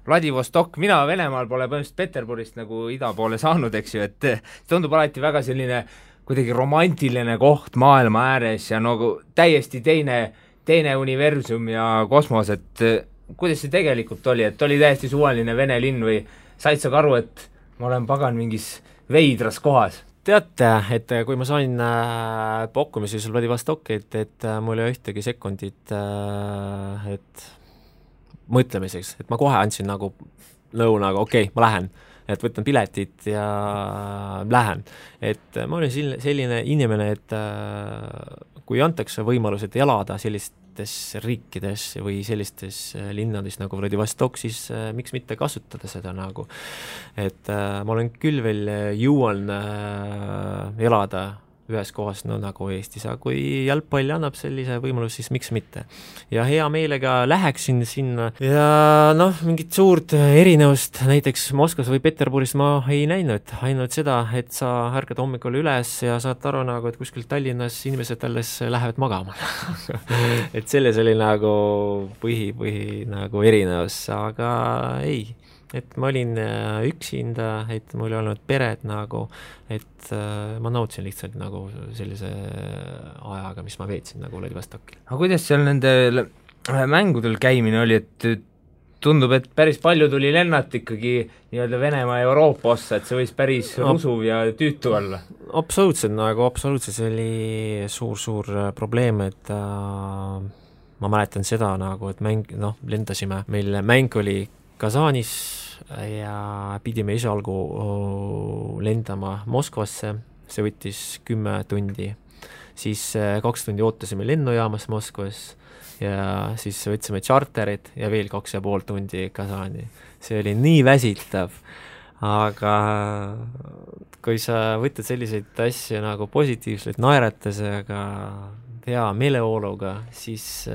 Vladivostok, mina Venemaal pole põhimõtteliselt Peterburist nagu ida poole saanud, eks ju, et tundub alati väga selline kuidagi romantiline koht maailma ääres ja nagu täiesti teine universum ja kosmos, et kuidas see tegelikult oli, et oli täiesti suvaline Vene linn või said sa aru, et ma olen pagan mingis veidras kohas? Teate, et kui ma sain pakkumisi seal Vladivostokit, et mul ei ühtegi sekundit et mõtlemiseks, et ma kohe andsin nagu nõu nagu okei, ma lähen, et võtan piletit ja lähen. Et ma olin selline inimene, et kui antakse võimalus, et elada sellistes riikides või sellistes linnades nagu Vladivostok, siis miks mitte kasutada seda nagu. Et ma olen küll veel jõuan elada ühes kohas nagu Eestis, aga kui jalgpall annab sellise võimalus, siis miks mitte. Ja hea meelega läheksin sinna ja mingit suurt erinevust näiteks Moskvas või Peterburis ma ei näinud, ainult seda, et sa ärkad hommikul üles ja saad aru nagu, et kuskil Tallinnas inimesed alles lähevad magama. Et selles oli nagu põhi nagu erinevus, aga ei, et ma olin üksinda, et mul ei olnud peret nagu, et ma nautisin lihtsalt nagu sellise ajaga, mis ma veetsin nagu Vladivostokil. aga kuidas seal nendel mängudel käimine oli, et tundub, et päris palju tuli lennata ikkagi nii-öelda Venemaa ja Euroopa ossa, et see võis päris rusuv ja tüütu olla? Absoluutselt, see oli suur probleem, et ma mäletan seda nagu, et lendasime, meil mäng oli Kasanis ja pidime esialgu lendama Moskvasse, see võttis 10 tundi, siis 2 tundi ootasime lennujaamas Moskvas ja siis võtsime charterid ja veel 2,5 tundi Kasani. See oli nii väsitav, aga kui sa võtad selliseid asju nagu positiivselt naeratusega, hea meeleoluga, siis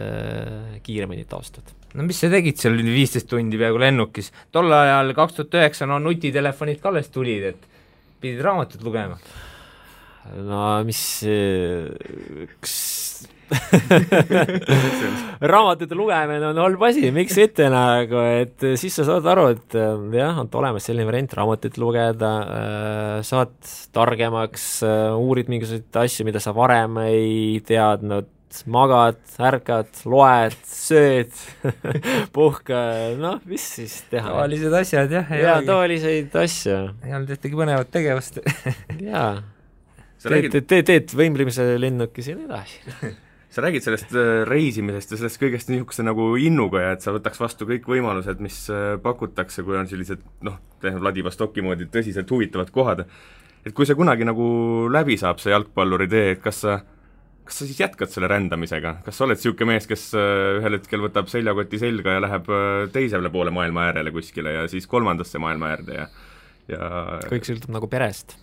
kiiremini taastud. No mis sa tegid seal 15 tundi peaaegu lennukis? Tol ajal 2009 nutitelefonid ka alles tulid, et pidid raamatut lugema. No mis raamatute lugemine on halb asi, miks mitte nagu, et siis sa saad aru, et jah, on olemas selline variant raamatut lugeda, saad targemaks, uurid mingisuguseid asju, mida sa varem ei teadnud, magad, ärkad, loed, sööd, puhka, mis siis teha? Tavalised asjad, jah. Jaa, tavaliseid asju. Ei olnud ühtegi põnevat tegevust. Jaa. Teed võimlemise lennukis ja nii edasi. Sa räägid sellest reisimisest ja sellest kõigest niisuguse nagu innuga ja et sa võtaks vastu kõik võimalused, mis pakutakse, kui on sellised, Vladivostoki moodi tõsiselt huvitavad kohad. Et kui see kunagi nagu läbi saab, see jalgpalluri tee, et kas sa siis jätkad selle rändamisega? Kas sa oled siuke mees, kes ühel hetkel võtab seljakoti selga ja läheb teisele poole maailma äärele kuskile ja siis 3. maailma äärde ja kõik sõltub nagu perest.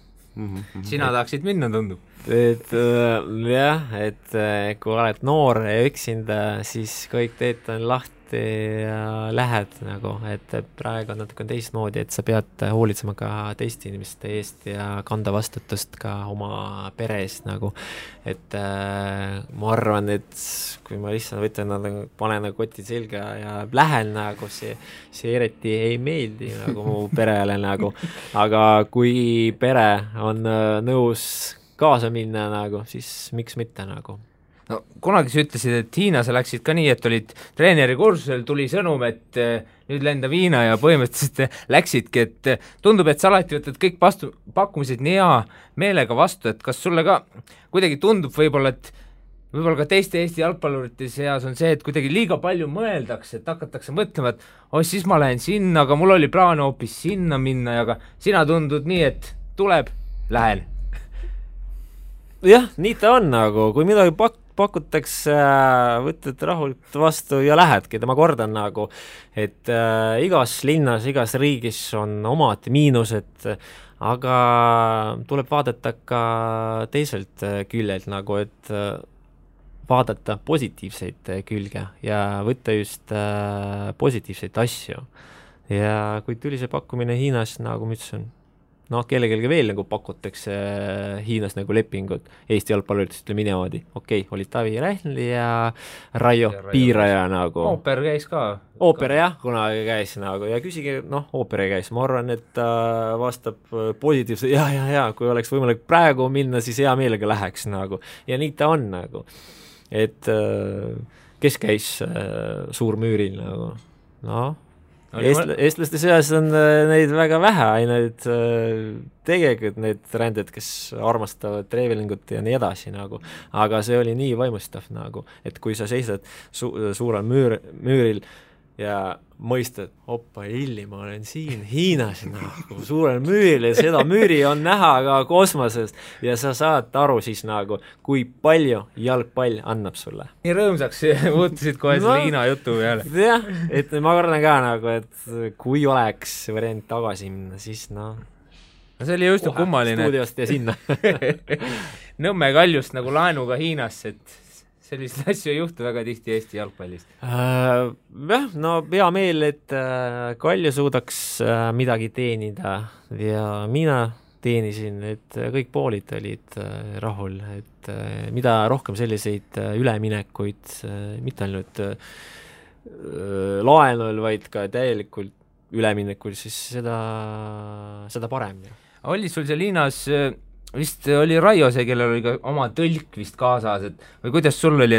Sina tahaksid minna, tundub? Et jah, et kui oled noor ja üksinda, siis kõik teed on lahti ja lähed nagu, et praegu on natuke teistmoodi, et sa pead hoolitsema ka teiste inimeste eest ja kanda vastutust ka oma pere eest nagu, et ma arvan, et kui ma lihtsalt võtan, panen koti selga ja lähen nagu, see eriti ei meeldi nagu mu perele nagu, aga kui pere on nõus kaasa minna nagu, siis miks mitte nagu. No kunagi sa ütlesid, et Hiinas läksid ka nii, et olid treeneri kursusel, tuli sõnum, et nüüd lenda Hiina ja põhimõtteliselt läksidki, et tundub, et sa alati võtad kõik pakkumised nii hea meelega vastu, et kas sulle ka kuidagi tundub võib-olla, et võib-olla ka teiste Eesti jalgpallurite seas on see, et kuidagi liiga palju mõeldakse, et hakatakse mõtlema, et siis ma lähen sinna, aga mul oli plaan hoopis sinna minna, aga sina tundud nii, et tuleb, lähen. Jah, nii ta on nagu, kui midagi pakutakse, võtad rahulikult vastu ja lähedki, ma kordan nagu, et igas linnas, igas riigis on omad miinused, aga tuleb vaadata ka teiselt küljelt nagu, et vaadata positiivseid külge ja võtta just positiivseid asju. Ja kui tuli see pakkumine Hiinas, nagu ma ütlesin, kellelgi veel nagu pakutakse Hiinas nagu lepingut, Eesti jalgpalluritest ütleme niimoodi, oli Tavi Rähnli ja Raio Piiraja nagu. Ooper käis ka. Ooper jah, kunagi käis nagu ja küsige, Ooper käis, ma arvan, et ta vastab positiivselt, ja, kui oleks võimalik praegu minna, siis hea meelega läheks nagu ja nii ta on nagu, et kes käis Suurmüüril nagu, eestlaste seas on neid väga vähe, ainult tegelikult need ränded, kes armastavad travelingut ja nii edasi nagu, aga see oli nii vaimustav nagu, et kui sa seisad suurel müüril ja mõistad, ma olen siin Hiinas nagu, suurel müüril ja seda müüri on näha ka kosmosest ja sa saad aru siis nagu, kui palju jalgpall annab sulle. Nii rõõmsaks muutusid kohe selle Hiina jutu peale. Jah, et ma kordan ka nagu, et kui oleks variant tagasi minna, siis see oli just kummaline. Stuudiost ja sinna. Nõmme Kaljust nagu laenuga Hiinasse, et selliseid asju ei juhtu väga tihti Eesti jalgpallist. Jah, hea meel, et Kalju suudaks midagi teenida ja mina teenisin, et kõik poolid olid rahul, et mida rohkem selliseid üleminekuid, mitte ainult laenul, vaid ka täielikult üleminekul, siis seda parem. Oli sul seal Hiinas, vist oli Raio see, kellel oli ka oma tõlk vist kaasas, et või kuidas sul oli,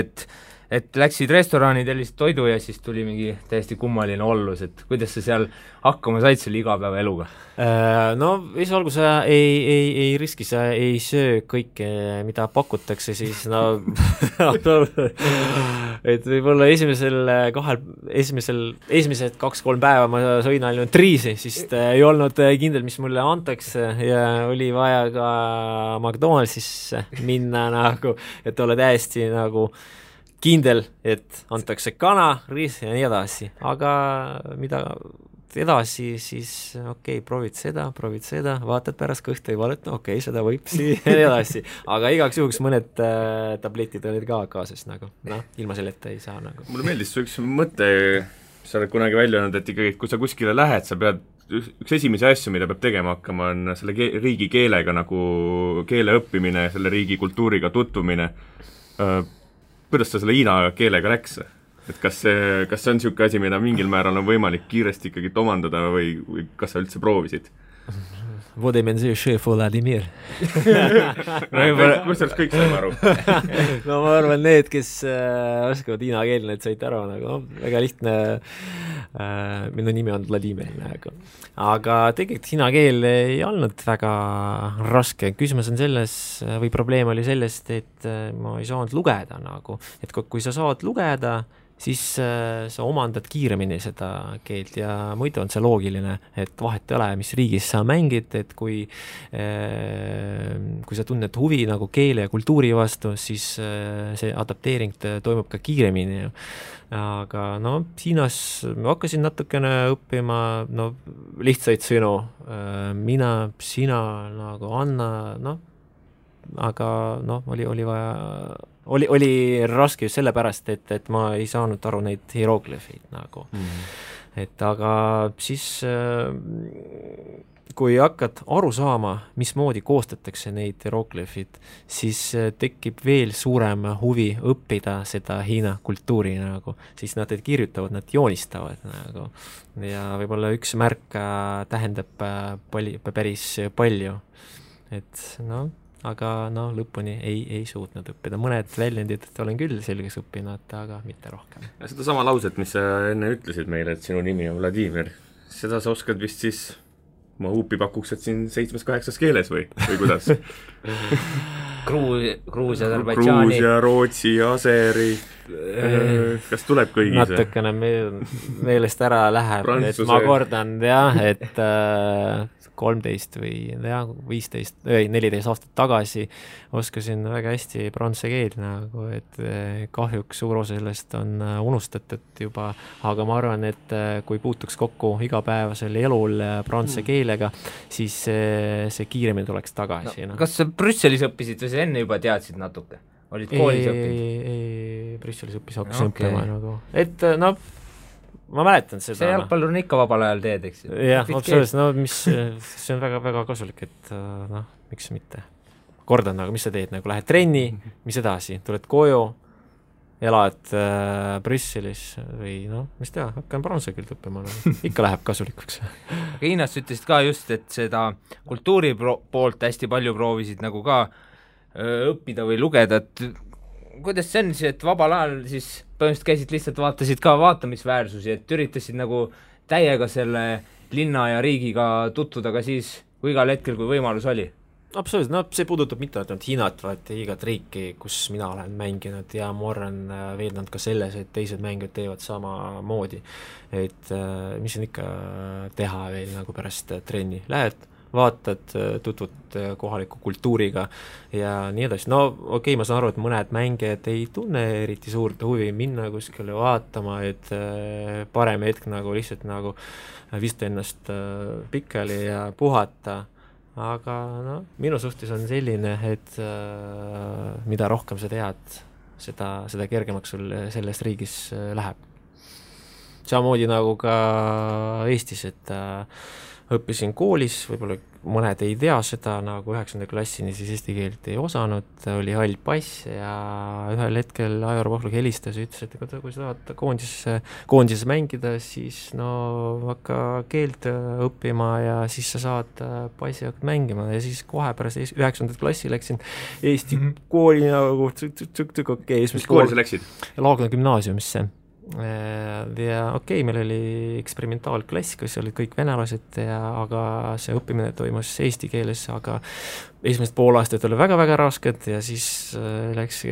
et läksid restorani, tellisid toidu ja siis tuli mingi täiesti kummaline ollus, et kuidas sa seal hakkama said selle igapäevaeluga? No esialgu sa ei riski, sa ei söö kõike, mida pakutakse, siis no et võib-olla esimesed 2-3 päeva ma sõin ainult riisi, siis ei olnud kindel, mis mulle antakse ja oli vaja ka McDonaldsisse minna nagu, et olla täiesti nagu kindel, et antakse kana, riis ja nii edasi, aga mida edasi, siis okei, proovid seda, vaatad pärast kõhtu ei valet, okei, seda võib siia ja nii edasi, aga igaks juhuks mõned tabletid olid ka kaasas nagu, ilma selleta ei saa nagu. Mulle meeldis su üks mõte, sa oled kunagi välja öelnud, et ikkagi, kui sa kuskile lähed, sa pead, üks esimesi asju, mida peab tegema hakkama, on selle riigi keelega nagu keele õppimine, selle riigi kultuuriga tutvumine. Kuidas ta selle hiina keelega läks? Et kas see on niisugune asi, mida mingil määral on võimalik kiiresti ikkagi omandada või kas sa üldse proovisid? Vodemenzi šef Vladimir. Kus sellest kõik saime aru? No ma arvan, need, kes oskavad hiina keel, need said aru, nagu väga lihtne, minu nimi on Vladimir, aga tegelikult hiina keel ei olnud väga raske, küsimus on selles, või probleem oli sellest, et ma ei saanud lugeda nagu, et kui sa saad lugeda, siis sa omandad kiiremini seda keelt ja muidu on see loogiline, et vahet ei ole, mis riigis sa mängid, et kui sa tunned huvi nagu keele ja kultuuri vastu, siis see adapteering toimub ka kiiremini. Aga no Hiinas ma hakkasin natukene õppima lihtsaid sõnu, mina, sina, nagu Anna, aga oli vaja oli raske just sellepärast, et ma ei saanud aru neid hieroglifid nagu. Et aga siis kui hakkad aru saama, mismoodi koostatakse neid hieroglifid, siis tekib veel suurem huvi õppida seda Hiina kultuuri nagu, siis nad kirjutavad, nad joonistavad nagu ja võib-olla üks märk tähendab päris palju, et aga lõpuni ei suutnud õppida. Mõned väljendid olen küll selgeks õppinud, aga mitte rohkem. Ja seda sama lauset, mis sa enne ütlesid meile, et sinu nimi on Vladimir, seda sa oskad vist siis, ma huupi pakuks, et siin 7-8 keeles või kuidas? Gruusia, Aserbaidžaani. Gruusia, Rootsi, Aseri, kas tuleb kõigis? Natukene meelest ära läheb, et ma kordan, et 13 või 15 või 14 aastat tagasi oskasin väga hästi prantsuse keelt nagu, et kahjuks suur osa sellest on unustatud juba, aga ma arvan, et kui puutuks kokku igapäevasel elul prantsuse keelega, siis see kiiremini tuleks tagasi. Kas sa Brüsselis õppisid või sa enne juba teadsid natuke? Olid koolis õppinud? Ei, Brüsselis hakkasin õppima nagu, et ma mäletan seda. See jalgpallur on ikka vabal ajal teed, eks? Jah, absoluutselt, see on väga, väga kasulik, et miks mitte. Kordan, mis sa teed, lähed trenni, mis edasi, tuled koju, elad Brüsselis või mis teha, hakkan prantsuse keelt õppima, ikka läheb kasulikuks. Aga Hiinas ütlesid ka just, et seda kultuuri poolt hästi palju proovisid nagu ka õppida või lugeda, et kuidas see on siis, et vabal ajal siis põhimõtteliselt käisid lihtsalt, vaatasid ka vaatamisväärsusi, et üritasid nagu täiega selle linna ja riigiga tutvuda ka siis, kui igal hetkel, kui võimalus oli? Absoluutselt, see puudutab mitte ainult Hiinat, vaid igat riiki, kus mina olen mänginud ja ma olen veelnud ka selles, et teised mängijad teevad samamoodi. Et mis on ikka teha veel nagu pärast trenni? Lähed, vaatad, tutvud kohaliku kultuuriga ja nii edasi. Okei, ma saan aru, et mõned mängijad ei tunne eriti suurt huvi minna kuskile vaatama, et parem hetk nagu lihtsalt nagu vista ennast pikali ja puhata. Aga minu suhtes on selline, et mida rohkem sa tead, seda kergemaks sul selles riigis läheb. Samamoodi nagu ka Eestis, et õppisin koolis, võib-olla mõned ei tea seda, nagu 9. klassini siis eesti keelt ei osanud, oli hall pass ja ühel hetkel Aivar Pohlak helistas ja ütles, et kui sa tahad koondises mängida, siis no hakka keelt õppima ja siis sa saad passi hakkad mängima ja siis kohe pärast 9. klassi läksin Eesti kooli nagu okei. Mis kooli sa läksid? Laagna gümnaasiumisse. Ja okei, meil oli eksperimentaalklass, kus olid kõik venelased, aga see õppimine toimus eesti keeles, aga esimesed pool aastat oli väga-väga rasked ja siis läks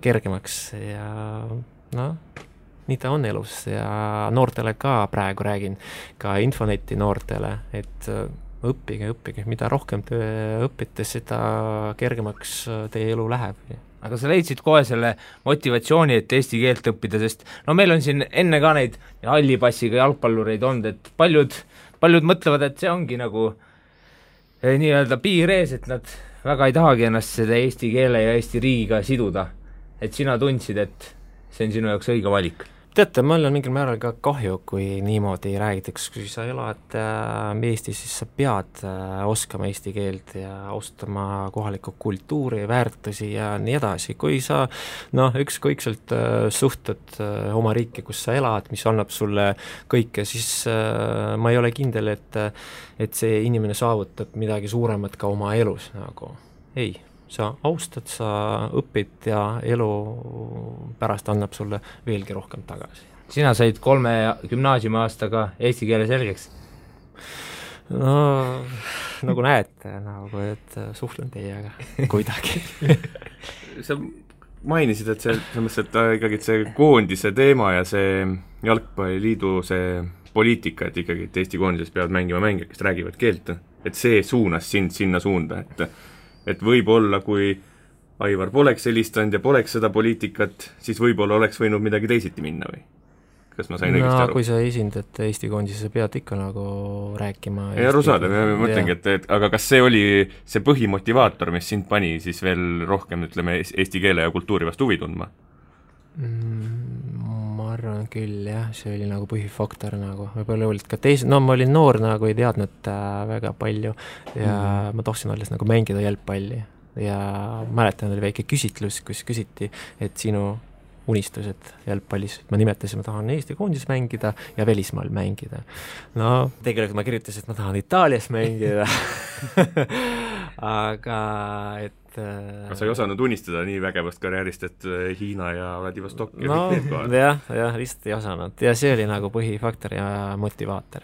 kergemaks ja nii ta on elus ja noortele ka praegu räägin, ka Infoneti noortele, et õppige, mida rohkem te õpite, seda kergemaks teie elu läheb. Aga sa leidsid kohe selle motivatsiooni, et eesti keelt õppida, sest meil on siin enne ka neid hallipassiga jalgpallureid olnud, et paljud mõtlevad, et see ongi nagu nii-öelda piir ees, et nad väga ei tahagi ennast seda eesti keele ja eesti riigiga siduda. Et sina tundsid, et see on sinu jaoks õige valik. Teate, mul on mingil määral ka kahju, kui niimoodi räägitakse, kui sa elad Eestis, siis sa pead oskama eesti keelt ja ostama kohalikku kultuuri, väärtusi ja nii edasi. Kui sa ükskõikselt suhtud oma riiki, kus sa elad, mis annab sulle kõike, siis ma ei ole kindel, et see inimene saavutab midagi suuremat ka oma elus. Nagu. Ei. Sa austad, sa õpid ja elu pärast annab sulle veelgi rohkem tagasi. Sina said 3 gümnaasiumi aastaga eesti keele selgeks? No, nagu näete, et suhtlen teiega kuidagi. Sa mainisid, et ikkagi see koondise teema ja see jalgpalliliidu see poliitika, et ikkagi et Eesti koondises peavad mängima mängijad, kes räägivad keelt, et see suunas sind sinna suunda, et võib-olla, kui Aivar poleks helistanud ja poleks seda poliitikat, siis võib-olla oleks võinud midagi teisiti minna või? Kas ma sain õigesti aru? Kui sa esindad Eesti koondise, pead ikka nagu rääkima. Ei aru saada, ma mõtlengi, et aga kas see oli see põhimotivaator, mis sind pani siis veel rohkem, ütleme, eesti keele ja kultuuri vastu huvi tundma? Ma arvan küll, jah, see oli nagu põhifaktor nagu, võib-olla olid ka ma olin noor nagu ei teadnud väga palju ja ma tohsin alles nagu mängida jalgpalli ja mäletan, oli väike küsitlus, kus küsiti, et sinu unistused jalgpallis, ma nimetasin, ma tahan Eesti koondis mängida ja välismaal mängida. No, tegelikult ma kirjutasin, et ma tahan Itaalias mängida aga Sa ei osanud unistada nii vägevast karjäärist, et Hiina ja Vladivostok ja kõik need kohal? Jah, lihtsalt ei osanud ja see oli nagu põhifaktor ja motivaator,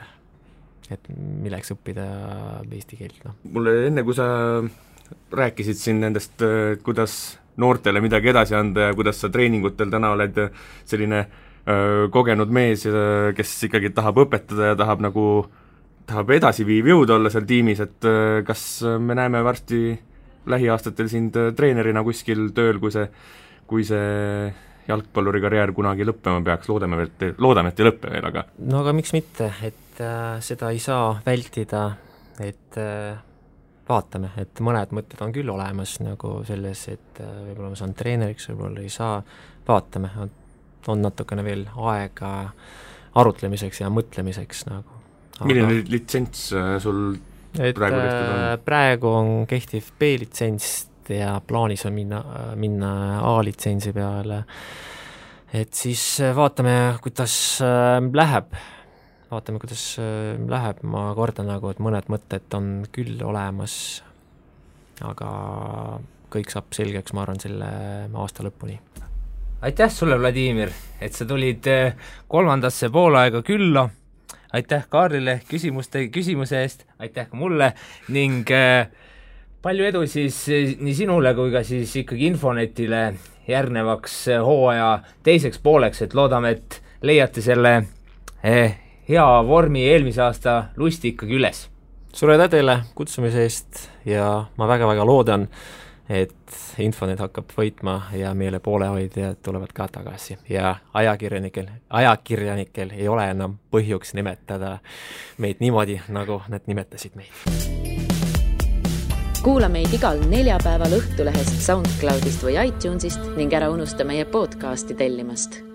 et milleks õppida eesti keelt. Mulle enne, kui sa rääkisid siin nendest, kuidas noortele midagi edasi anda ja kuidas sa treeningutel täna oled selline kogenud mees, kes ikkagi tahab õpetada ja tahab edasiviiv jõud olla seal tiimis, et kas me näeme varsti lähiaastatel sind treenerina kuskil tööl, kui see jalgpalluri karjäär kunagi lõppema peaks, loodame, et ei lõppe veel, aga... No aga miks mitte, et seda ei saa vältida, et vaatame, et mõned mõtted on küll olemas nagu selles, et võib-olla ma saan treeneriks, võib-olla ei saa, vaatame, on natukene veel aega arutlemiseks ja mõtlemiseks nagu. Milline litsents sul praegu on kehtiv B-litsents ja plaanis on minna A-litsentsi peale, et siis vaatame, kuidas läheb, ma kordan nagu, et mõned mõtted on küll olemas, aga kõik saab selgeks, ma arvan, selle aasta lõpuni. Aitäh sulle, Vladimir, et sa tulid 3. poolaega külla. Aitäh Kaarlile küsimuse eest, aitäh ka mulle ning palju edu siis nii sinule kui ka siis ikkagi Infonetile järgnevaks hooaja teiseks pooleks, et loodame, et leiate selle hea vormi eelmise aasta lusti ikkagi üles. Sulle teile kutsumise eest ja ma väga-väga loodan, et Infonet hakkab võitma ja meile poolehoidjad tulevad ka tagasi ja ajakirjanikel ei ole enam põhjuks nimetada meid niimoodi, nagu nad nimetasid meid. Kuula meid igal neljapäeval Õhtulehest, SoundCloudist või iTunesist ning ära unusta meie podcasti tellimast.